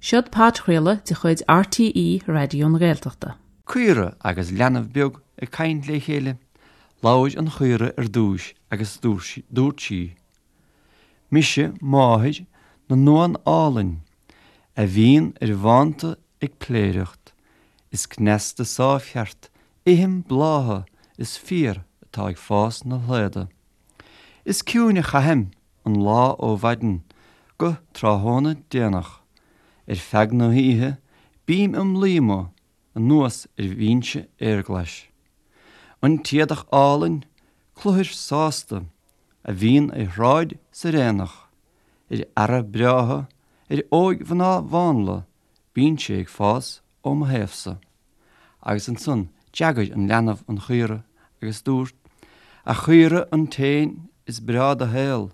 Seod podchraoladh de chuid RTÉ Raidió na Gaeltachta. Caora agus leanbh beag ag caint le chéile. Labhair an chaora ar dtúis agus dúirt sí, Mise máthair na n-uan álainn, a bhíonn ar bhánta ag pléireacht, is cneasta sáimhcheart ithim blátha is féar atá ag fás 'na shlaoda. Is ciúin a chaithim an lá ó mhaidin go tráthnóna déanach. Ar feadh na hoíche bím im luí amuigh anuas ar bhinse fhéarghlais. An t-éadach álainn, cluthair sásta, a bhíonn ar shráid 's ar aonach, ar fheara breátha, ar óigmhná mhánla, bíonn sé ag fás ó mo thaobhsa. Agus ansan d'fhreagair an leanbh an chaora agus dúirt, A chaora an t-éan is breá do shaol,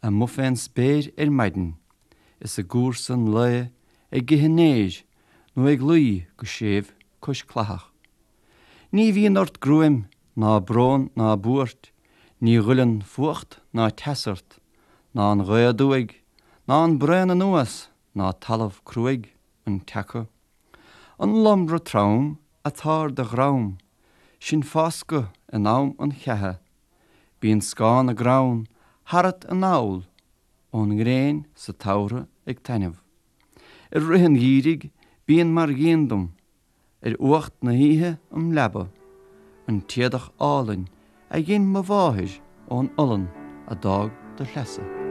amuigh fén spéir ar maidin, is i gcúrsa an lae ag ithe an fhéir nó ag luí go séimh cois cladhach. Ní bhíonn ort gruaim ná brón ná buairt, ní ghoilleann fuacht ná teas ort, ná an ghaoth aduaidh, ná an braon anuas, ná talamh cruaidh an tseaca. An lomra trom atá ar do dhrom, sin fáscadh in am an cheatha. Bíonn scáth na gcrann tharat anall ón ngréin sa tsamhradh ag taitneamh. I rith an gheimhridh bíonn mar dhíon dom ar fhuacht na hoíche im leaba, an t-éadach álainn a dhein mo mháthair ón olann a d'fhág do shleasa.